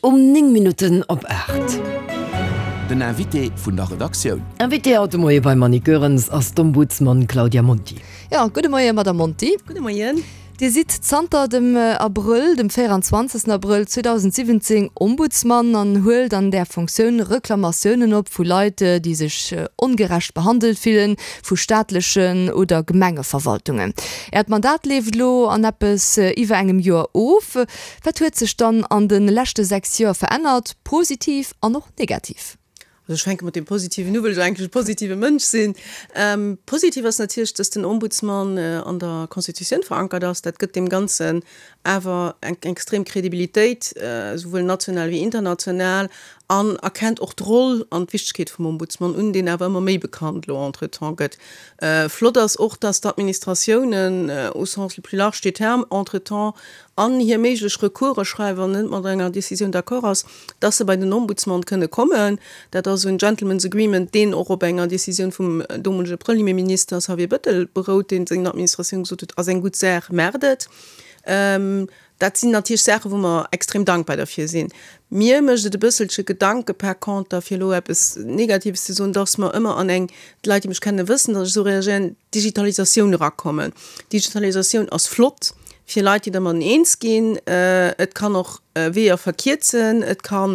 Um 9 Minutten op 8. Den Invité vun der Redaktioun. Invité haut de Moie beim Annick Goerens ass d'Ombudsman Claudia Monti. Jo, gudde Moie Madame Monti. Gudde Moien. Dir sidd zanter dem Abrëll, dem 24. Abrëll 2017 Ombudsman an huelt an där Fonctioun Reklamatiounen op vu Leit, déi sech ongerecht behandelt fillen vu staatlechen oder Gemengeverwaltungen. Äert Mandat leeft elo an eppes iwwer engem Joer of. Wat huet sech dann an de leschte 6 Joer verännert, positiv an och negativ? Also ech fänke mat deem Positiven u, well ech eigentlech e positive Mënsch sinn. Positiv ass natierlech, dass den Ombudsman an der Constitutioun verankert ass. Dat gëtt deem Ganzen awer eng extrem Kredibilitéit, esouwuel national wéi international, an erkennt och d'Roll an d'Wichtegkeet vum Ombudsman un, deen awer ëmmer méi bekannt elo entretemps gëtt. Flott ass och, dass d'Administratiounen au sens le plus large du terme entretemps an hir méiglech Recourse schreiwen, wann net mat enger Décisioun d'accord ass, dass se bei den Ombudsman kënne kommen. Dat ass en Gentlemen's Agreement, deen och op enger Décisioun vum domolege Premierminister Xavier Bettel berout, deen senger Administratioun gesot huet, ass eng gutt Saach, maacht et. Dat sinn natierlech Saachen, wou mer extrem dankbar derfir sinn. Mir mécht et e bësselche Gedanke par conter, fir elo eppes Negatives ze soen, dass mer ëmmer an eng, d'Leit, déi mech kennen, wëssen, dass ech esou reagéieren, Digitalisatioun erakommen. Digitalisatioun ass flott, fir Leit, déi dermadden eens ginn. Et kann och Weeër verkierzen, et ka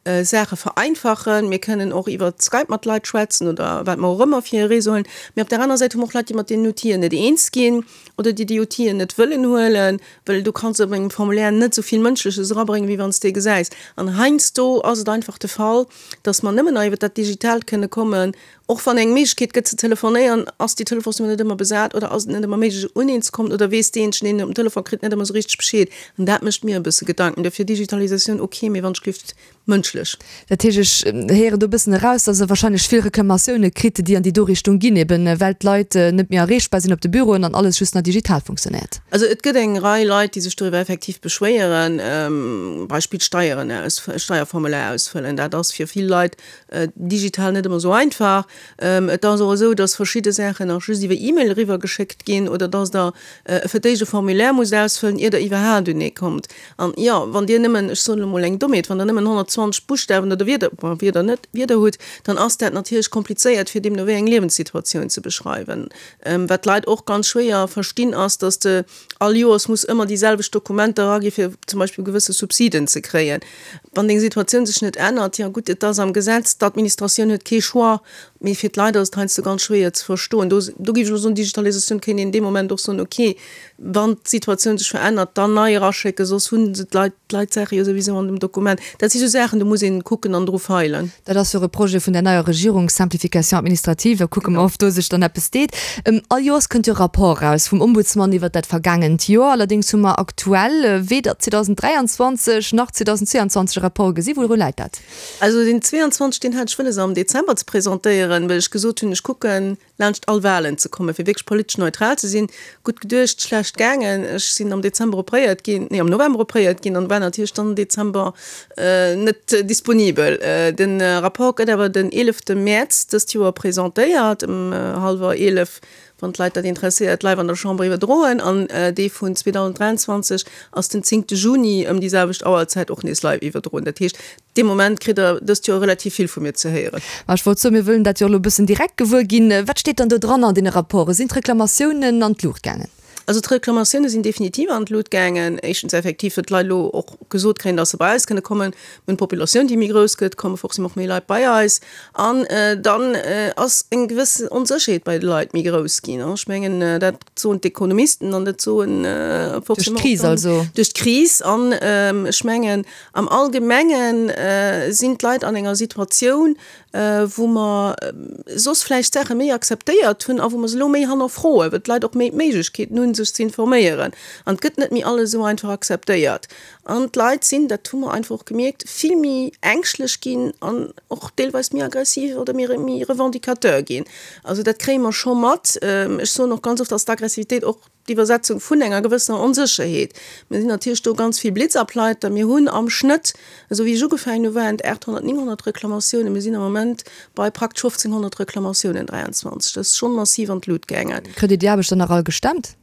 Saache vereinfachen. Mir kënnen och iwwer Skype mat Leit schwätzen oder wat mer och ëmmer fir e Réseau huelen. Mee op där aner Säit hu mer och Leit, déi mat deenen Outiller net eens ginn oder déi déi Outilen net wëllen huelen, well du kanns op engem Formulaire net esou vill Mënschleches erabréngen, wéi wann s de e gesäis. An heiansdo ass et einfach de Fall, dass mer nëmmen nach iwwer dat Digitaalt kënne kommen, Och wann eng Méiglechkeet gëtt ze telefonéieren, ass déi Telefonsnummer net ëmmer besat oder ass et net ëmmer méiglech un een ze kommen oder weess deejéinegen, deen een op den Telefon kritt, net ëmmer esou richteg Bescheed. An dat mécht mir e bësse Gedanken. Dofir Digitalisatioun ok, mee wann ech gelift mënschlech. Dat heescht, ech héieren do e bëssen eraus, dass Der wahrscheinlech vill Reklamatioune kritt, déi an déi do Richtung ginn, eben well d'Leit net méi erreechbar sinn op de Büroen an alles just nach digital funktionéiert. Also et gëtt eng Rei Leit, déi sech doriwwer effektiv beschwéieren, Beispill Steieren aus, Steierformular ausfëllen, dat ass fir vill Leit Digital net ëmmer esou einfach. Et ass och esou, dass verschidde Saachen nach just iwwer E-Mail eriwwer geschéckt ginn oder dass Der fir d'éischt e Formulaire musst ausfëllen, ier Der iwwerhaapt un ee kommt. An jo, wann Dir nëmmen, ech soen elo mol eng Dommheet, wann Der nëmmen 120 Buschtawen oder Wierder, bon, Wierder net, Wierder hutt, dann ass dat natierlech komplizéiert, fir deemno wéi eng Liewenssituatioun ze beschreiwen. Wat d'Leit och ganz schwéier verstinn, ass, dass de All Joers muss ëmmer déi selwecht Dokumenter eragi fir zum Beispill gewësse Subsiden ze kréien. Wann deng Situatioun sech net ännert, jo gutt, et ass am Gesetz, d'Administratioun huet kee Choix, mee fir d'Leit ass et heiansdo ganz schwéier ze verstoen. Do do géif ech elo soen, Digitalisatioun kéint een dee Moment och soen, okay, wann d'Situatioun sech verännert, dann nei eraschécken, soss hu se d'Leit d'Leit d'Saache jo souwisou an dem Dokument. Dat si sou Saachen, do muss een kucken an dru feilen. Dat ass jo och e Projet vun der neier Regierung, Simplification administrative. Da kucke mer, ob do sech dann eppes deet. All Joers kënnt jo e Rapport eraus vum Ombudsman iwwert dat vergaangent Joer. Allerdéngs hu mer aktuell weder 2023 nach 2022 e Rapport gesi. Wouru läit dat? Also deen 22, deen hat ech wëlles am Dezember ze presentéieren, well ech gesot hunn, ech kucken, laanscht all Wahlen ze kommen, fir wierklech politesch neutral ze sinn. Gutt geduecht, schlecht gaangen. Ech sinn am Dezember opréiert ginn, nee am November opréiert ginn an war natierlech dann am Dezember net disponibel. De Rapport gëtt awer den 11 Mäerz dëst Joer presentéiert, ëm hallwer 11, wann d'Leit dat interesséiert, live an der Chamber iwwerdroen. An dee vun 2023 ass den 10 Juni ëm déi selwecht Auerzäit och nees live iwwerdroen. Dat heescht, Dee Moment kritt der dëst Joer relativ vill vu mir ze héieren. Ma ech wollt soen, mir wëllen dat jo elo e bëssen direkt gewuer ginn. Wat steet dann do dran an deene Rapporten? Sinn d'Reklamatiounen an d'Luucht gaangen? Also d'Reklamatioune sinn definitiv an d'Lut gaangen. Éischtens effektiv, datt d'Leit elo och gesot kréien, datt se bei eis kënne kommen. Mir hunn d'Populatioun, déi méi grouss gëtt, komme forcément och méi Leit bei eis. An dann ass eng gewëssen Onsécherheet bei de Leit méi grouss ginn. Ech mengen, dat soen d'Ekonomisten an dat soen forcément och dann. Duerch d'Kris also. Duerch d'Kris. An ech mengen, Am Allgemenge sinn d'Leit an enger Situatioun, wou mer soss vläicht Saache méi akzeptéiert hunn a wou mer se elo méi hannerfroen, well d'Leit och méi d'Méiglechkeeten hunn, sech ze informéieren. An et gëtt net méi alles esou einfach akzeptéiert. An d'Leit sinn, dat hu mer einfach och gemierkt, vill méi ängschtlech ginn an och deelweis méi aggressiv oder méi revendicateur ginn. Also dat kréie mer scho mat. Ech soen och ganz oft, dass d'Aggressivitéit och D'Iwwersetzung vun enger gewëssener Onsécherheet. Mir sinn natierlech do ganz vill Blitzableiter. Mir hunn am Schnëtt, esou wéi ech ugefaangen hu waren et 800, 900 Reklamatiounen. Mir sinn am Moment bei praktesch 1.500 Reklamatiounen 23. Dat ass schonn massiv an d'Lut gaangen. Kritt Dir déi Aarbecht dann nach all gestemmt?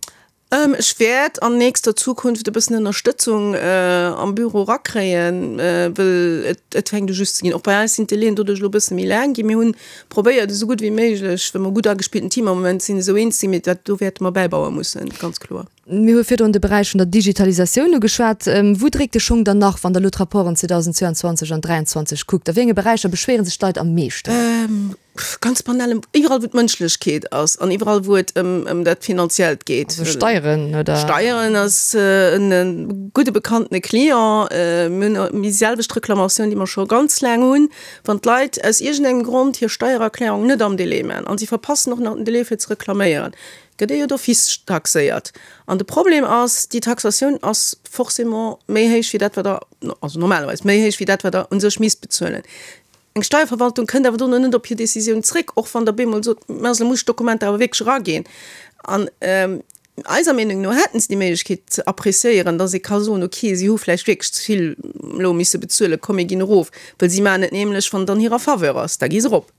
Ech wäert an nächster Zukunft e bëssen Ënnerstëtzung am Büro erakréien, wëll et fänkt u just ze ginn. Och bei eis sinn d'Délaiën doduerch elo e bësse méi laang ginn. Mir hunn probéiert, esou gutt wéi méiglech, well mer e gutt agespillten Team am Moment sinn, esou eens ze ginn, mee dat do wäerte mer bäibaue mussen, ganz kloer. Mir hu virdrun de Beräich vun der Digitalisatioun ugeschwat. Wou dréckt de Schong dann nach, wann Der elo d'Rapporten 2022 an 2023 kuckt? A wéi enge Beräicher beschwéiere sech d'Leit am meeschten? Ganz banal, iwwerall wou d'Mënschlechkeet ass an iwwerall wou et ëm ëm dat Finanziellt geet. Also Steieren, oder? Steieren ass en gudde bekanntene Client. Mir hunn déi selwecht Reklamatioun, déi mer scho ganz laang hunn, wann d'Leit aus iergendengem Grond hir Steiererklärung net am Délai maachen an si verpassen och nach den Délai fir ze reklaméieren, gëtt ee jo d'office taxéiert. An de Problem ass, déi Taxatioun ass forcément méi héich wéi dat wat Der, also normalerweis méi héich wéi dat wat Der u sech misst bezuelen. Eng Steierverwaltung kënnt awer dono net op hir Décisioun zréck, och wann Der bemol sot, mä also muss ech d'Dokumenter awer wierklech eraginn. An eiser Meenung no hätten se déi Méiglechkeet ze appréciéieren, dass ee ka soen, okay, si hu vläicht wierklech ze vill elo misse bezuelen, komm mir ginn erof. Well si maachen et nämlech, wann et an hirer Faveur ass, da gi se erop.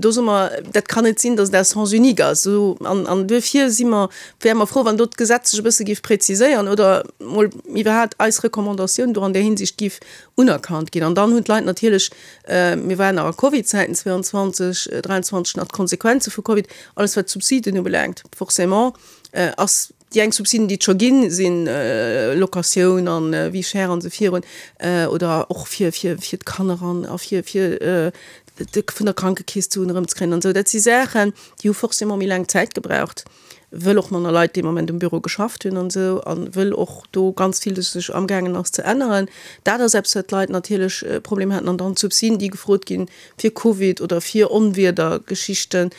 Do soe mer, dat kann net sinn, dass et à sens unique ass. An, an duerfir si mer, wäre mer frou, wann do d'Gesetz sech e bësse géif präziséieren oder mol iwwerhaapt eis Recommandatioun do an där Hinsicht géif unerkannt ginn. An dann hunn d'Leit natierlech, mir waren nach a Covid-Zäiten 22, 23, nach d'Konsequenze vu Covid, alles wat d'Subsiden ubelaangt, forcément ass déi eng Subsiden, déi et scho ginn, si Locatioun an Vie chère an esou virun, oder och fir, fir, fir d'Kanner an a fir, fir vun der Krankekeess d'Suen erëmzekréien an esou. Dat si Saachen, déi hu forcément méi laang Zäit gebraucht. wëll och manner Leit dee Moment um Büro geschafft hunn an esou a wëll och do ganz vill sech amgaangen ass ze änneren. Dat ass eppes, wat d'Leit natierlech Problemer haten. An dann d'Subsiden, déi gefrot ginn fir Covid oder fir Onwiedergeschichten,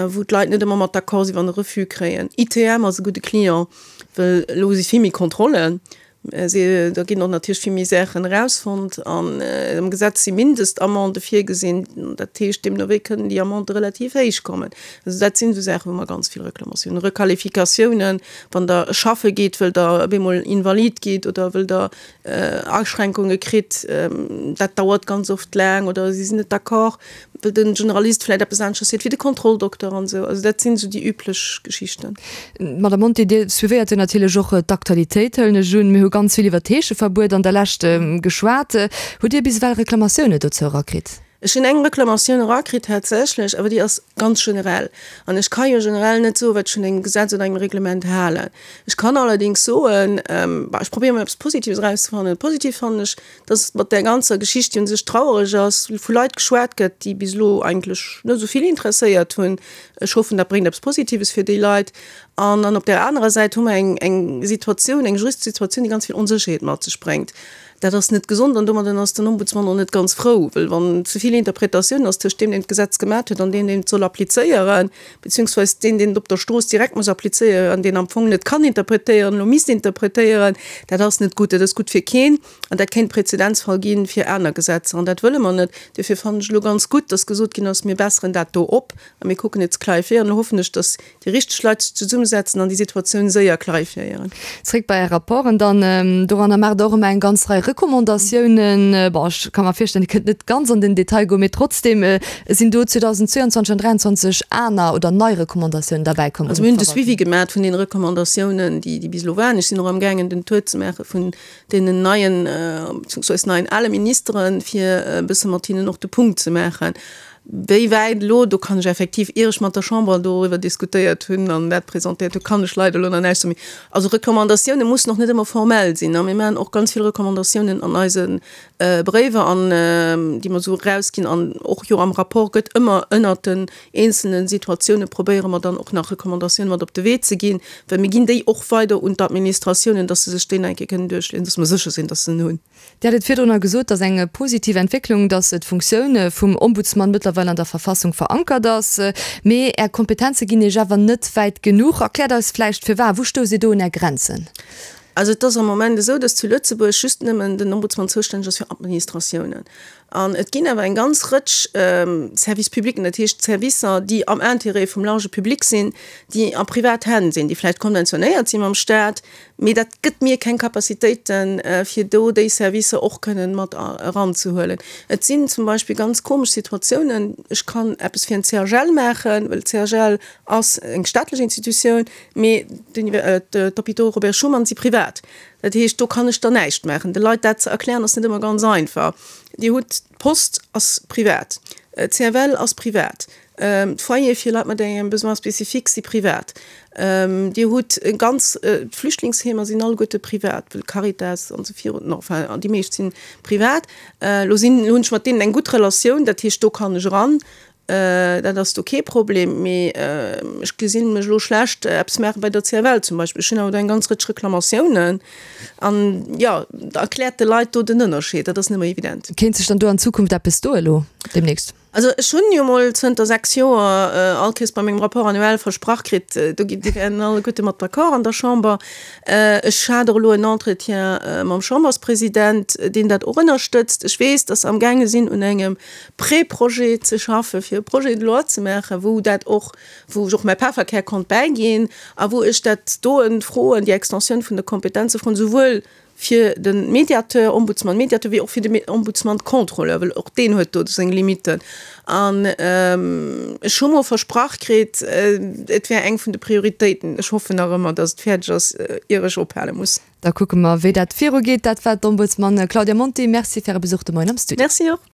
wou d'Leit net ëmmer mat d'accord sinn, wann e Refus kréien. ITM ass e gudde Client, wëll elo si vill méi Kontrollen. Da ginn och natierlech vill méi Saachen erausfonnt an am Gesetz si Mindestamendë virgesinn. Dat heescht, deemno wéi kënnen déi Amendë relativ héich kommen. Also dat sinn esou Saachen, wou mer ganz vill Reklamatiounen, Requalifikatiounen, wann Der schaffe geet, wëll Der op eemol invalid gitt oder wëll Der Aschränkunge kritt, dat dauert ganz oft laang oder si sinn net d'accord. Wëll de Generalist vläit eppes aneschters seet wéi de Kontrolldokter an esou. Also dat sinn esou déi üblech Geschichten. Madame Monti, Dir suivéiert jo natierlech och d'Aktualitéit, hëllen ech un. Mir hu ganz vill iwwer d'Heescheverbuet an der Lescht geschwat. Hutt Dir bis ewell Reklamatioune dozou erakritt? Ech hunn eng Reklamatioun erakritt tatsächlech, awer déi ass ganz generell. An ech ka jo generell net soen, wat ech vun engem Gesetz oder engem Reglement halen. Ech kann allerdéngs soen, bah, ech probéiere mol eppes Positives erauszefannen. Positiv fannen ech, dass mat där ganzer Geschicht, déi un sech trauereg ass, vu Leit geschwat gëtt, déi bis elo eigentlech net esou vill interesséiert hunn. Ech hoffen, dat bréngt eppes Positives fir déi Leit. An dann op där anerer Säit hu mer eng, eng Situatioun, eng juristesch Situatioun, déi ganz vill Onsécherheet mat sech bréngt. Dat ass net gesond an domadden ass den Ombudsmann och net ganz frou, well wann ze vill Interpretatioun ass tëscht deem, deen d'Gesetz gemat huet, an deem, deen et soll applizéieren, beziehungsweis deen, deen et op der Strooss direkt muss applizéieren an deen am Fong net kann interpretéieren, elo misst interpretéieren, dat ass net gutt. Dat ass gutt fir keen an dat kéint Präzedenzfall gi fir aner Gesetzer an dat wëlle mer net. Duerfir fannen ech elo ganz gutt, dass gesot ginn ass, mir besseren dat do op a mir kucken et ze clarifiéieren. Elo hoffen ech, dass déi richteg Leit sech zesummesetzen an déi Situatioun séier clarifiéieren. Zréck bei Är Rapporten dann. Doranner maacht Der och ëmmer eng ganz Rei Recommandatiounen. Bon, ech ka mer virstellen, Dir kënnt net ganz an den Detail goen, mee trotzdem, sinn do 2022 an 2023 aner oder nei Recommandatiounen derbäi komm? Also mir hunn de Suivi gemaach vun deene Recommandatiounen, déi déi bis elo waren. Ech sinn och amgaangen den Tour ze maache vun deenen neien, beziehungsweise neien ale Ministeren, fir e bësse mat hinnen och de Punkt ze maachen. Wéi wäit elo, do kann ech effektiv, ier ech mat der Chamber doriwwer diskutéiert hunn an dat presentéiert hunn, kann ech leider elo nach näischt soen. Also Recommandatioune mussen och net ëmmer formell sinn. A mir maachen och ganz vill Recommandatiounen an eise Bréiwer an déi mer esou erausginn an och jo am Rapport gëtt ëmmer ënnert den eenzelne Situatioune probéiere mer dann och nach Recommandatioune mat op de Wee ze ginn, well mir ginn déi och weider un d'Administratiounen, dass se sech déi nach eng Kéier kënnen duerchliesen, dass mer sécher sinn, dass se en hunn. Dir hat et virdrunner gesot, dass eng positiv Entwécklung, dass d'Funktioun vum Ombudsmann mëttlerweil an der Verfassung verankert ass. Mee Är Kompetenze ginn Iech awer net wäit genuch. Erkläert eis vläicht firwat. Wou stousst Dir do un Är Grenzen? Also et ass am Moment esou, dass zu Lëtzebuerg just nëmmen den Ombudsman zoustänneg ass fir Administratiounen. An et ginn awer eng ganz Rëtsch Services publics, dat heescht Servicer, déi am Intérêt vum large public sinn, déi a privat Hänn sinn, déi vläicht konventionéiert si mam Staat, mee dat gëtt mir keng Capacitéiten, fir do déi Servicer och kënnen mat eranzehuelen. Et sinn zum Beispill ganz komesch Situatiounen, ech kann eppes fir en CHL maachen, well CHL ass eng staatlech Institutioun, Mee d'Hôpitaux Robert Schuman si privat. Dat heescht, do kann ech dann näischt maachen. De Leit dat ze erklären, ass net ëmmer ganz einfach. Dir hutt, d'Post ass privat, d'CFL ass privat, d'Foyere fir Leit mat engem Besoin spécifique si privat. Dir hutt ganz, d'Flüchtlingsheemer sinn alleguerte privat, well Caritas an esou virun, enfin déi meescht si privat. Elo sinn, elo hunn ech mat deenen eng gutt Relatioun, dat heescht, do kann ech eran. Dat ass do kee Problem, mee ech gesinn mech elo schlecht eppes maache bei der CFL zum Beispill. Ech hunn awer do eng ganz Rëtsch Reklamatiounen an, jo, erkläert de Leit do den Ënnerscheed, dat ass net ëmmer evident. Kéint sech dann do an Zukunft eppes doe elo deemnächst? Also ech hunn jo mol zënter 6 Joer all Kees bei mengem Rapport annuel versprach kritt, do gi déi wären alleguerte mat d'accord an der Chamber. Ech hat och elo en Entretien mam Chamberspresident, deen dat och ënnerstëtzt. Ech weess, datt se amgaange sinn un engem Pré-Projet ze schaffen, fir e Projet de loi ze maachen, wou dat och, wou ech och mäi Pefferkär konnt bäiginn a wou ech dat doen, froen, déi Extensioun vun de Kompetenze froen, souwuel fir de Médiateur, Ombudsman Médiateur, wéi och fir de Ombudsman Contrôleur, well och deen huet do seng Limiten. An ech hu mol versprach kritt, et wär eng vun de Prioritéiten. Ech hoffen nach ëmmer, datt et fäerdeg ass, ier ech ophale muss. Da kucke mer, wéi dat virugeet. Dat war d'Ombudsman Claudia Monti. Merci fir Äre Besuch de Moien am Studio. Merci och.